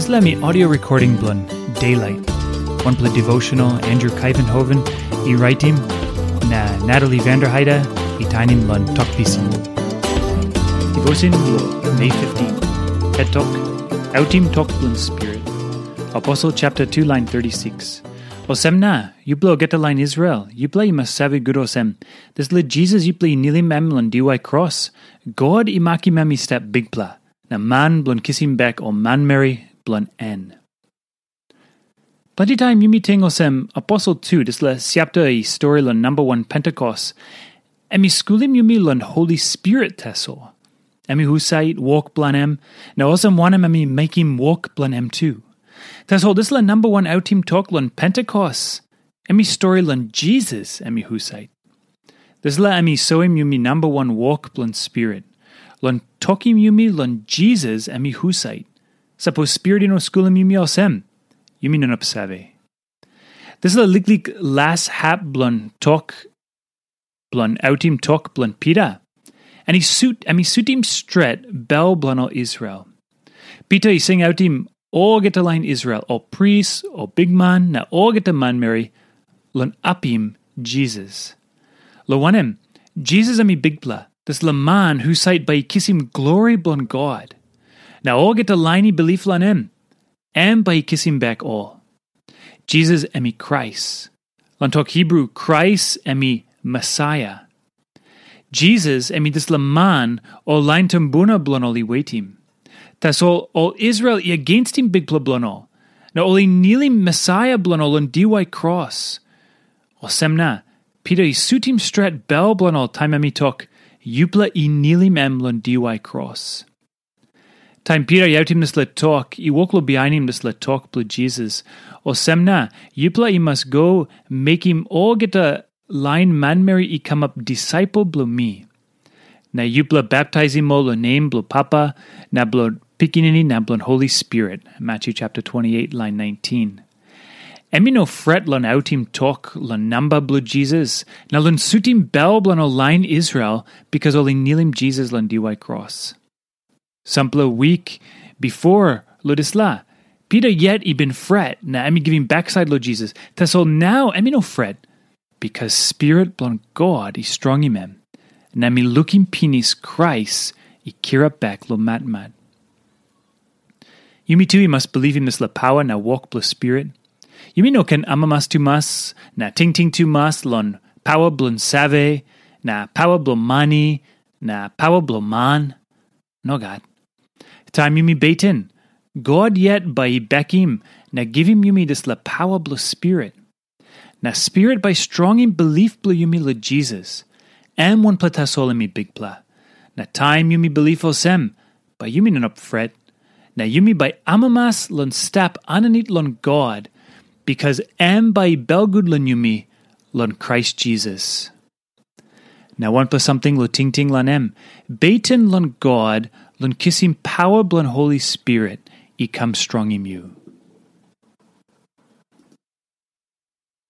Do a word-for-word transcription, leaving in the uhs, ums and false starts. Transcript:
Dispela mi audio recording bilong Daylight, wanpela devotional Andrew Kaivenhoven i raitim, na Natalie Vanderheide i tainim long Tok Pisin. Devotion bilong May fifteen. Het tok, Autim Tok Bilong Spirit. Aposel chapter two, line thirty-six. Olsem na, yupela olgeta lain Israel, yupela i mas save gut olsem, dispela Jisas yupela i nilim em long diwai kros, God i makim em i stap bikpela, na man bilong kisim bek ol manmeri bilong en. Planti taim yumi ting olsem, Aposel tu, dispela chapter i stori long namba wan Pentekost, em i skulim yumi long Holi Spirit tasol. Em i husat, wok bilong em, na olsem wanem em i mekim wok bilong em tu. Tasol dispela namba wan autim tok long Pentekost, em i stori long Jisas em i husat. Dispela em i soim yumi namba wan wok bilong Spirit, long tokim yumi long Jisas em i husat. Sapos Spirit i no skulim yumi olsem, yumi no inap save. Dispela liklik las hap bilong tok, bilong autim tok bilong Pita, em i sut, em i sutim stret bel bilong ol Israel. Pita i singautim olgeta lain Israel, ol pris, ol bikman, na olgeta manmeri, long apim Jisas. Long wanem, Jisas em i bikpela, dispela man husat bai i kisim glori bilong God. Na olgeta lain i bilip long em, em bai i kisim bek ol. Jisas em i Krais. Long tok Hibru, Krais em i Mesaia. Jisas em i dispela man ol lain tumbuna bilong ol i wetim. Tasol ol Israel i agenstim Bikpela bilong ol, na ol i nilim Mesaia bilong ol long diwai kros. Olsem na, Pita i sutim stret bel bilong ol taim em i tok, "Yupela i nilim em long diwai kros." Taim Pita i autim dispela tok, i wok long bihainim dispela tok bilong Jisas. Olsem na, yupela i mas go mekim olgeta lain manmeri i kamap disaipel bilong mi. Na yupela baptaisim ol long nem bilong Papa, na bilong Pikinini, na bilong Holi Spirit. Matthew chapter twenty-eight, line nineteen. Em i no fret long autim tok long namba bilong Jisas, na long sutim bel bilong ol lain Israel, bikas ol i nilim Jisas long diwai kros. Sampela wik bipo long dispela, Pita yet i bin fret, na em i givim baksait long Jisas. Tasol nau em i no fret, bikas Spirit bilong God i strongim em, na em i lukim pinis Krais i kirap bek long matmat. Yumi tu i mas bilipim dispela pawa na wok bilong Spirit. Yumi no ken amamas tumas, na tingting tumas long pawa bilong save, na pawa bilong mani, na pawa bilong man. Nogat. Taim yumi beten, God yet bai i bekim na givim yumi dispela pawa bilong Spirit. Na Spirit bai strongim bilip bilong yumi long Jisas. Em wanpela tasol em i bikpela. Na taim yumi bilip olsem, bai yumi no inap fret. Na yumi bai amamas long stap aninit long God, bikas em bai i belgut long yumi long Krais Jisas. Na wanpela samting long tingting long em, beten long God long kisim pawa bilong Holi Spirit i kam strongim yu.